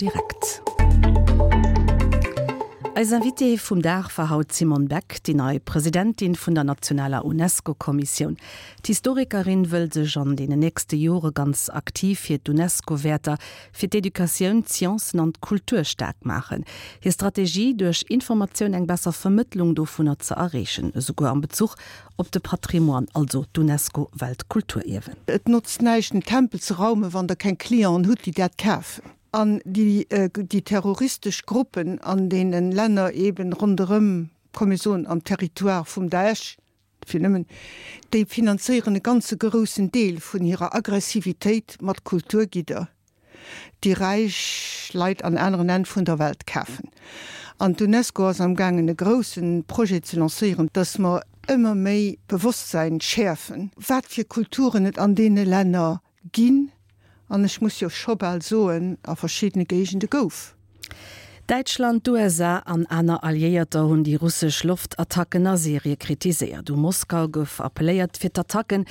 Direkt. Eis Invitée vum Dag war haut d'Simone Beck, déi nei Presidentin vun der nationaler UNESCO-Kommissioun. D'Historikerin wëll sech an deenen nächste Jore ganz aktiv fir d'UNESCO-Wäerter, fir d'Educatioun, d'Sciencen an d'Kultur staark maachen. Hir Strategie, duerch Informatioun eng besser Vermëttlung dovunner ze erreechen, esouguer am Bezuch op de Patrimoine, also d'UNESCO-Weltkulturierwen. Et notzt näischt en Tempel ze raumen, wann der keng Clienten hutt déi dat kafen. An déi déi terroristesch Gruppen an deene Länner eben ronderëm, komm mir soen am Territoire vum Daesh, fir nëmmen, déi finanzéieren e ganze groussen Deel vun hirer Aggressivitéit mat Kulturgidder, déi räich Leit an aneren Enn vun der Welt kafen. An d'UNESCO ass am gaangen e grousse Projet ze lancéieren, dass mer ëmmer méi Bewosstsäin schäerfen, wat fir Kulturen et an deene Länner Ginn, an ech muss jo scho bal soen, a verschiddene Géigende gouf. Däitschland, d'USA an aner Alliéierter hunn déi russesch Loftattacken a Syrie kritiséiert. U Moskau gouf appelléiert, fir d'Attacken.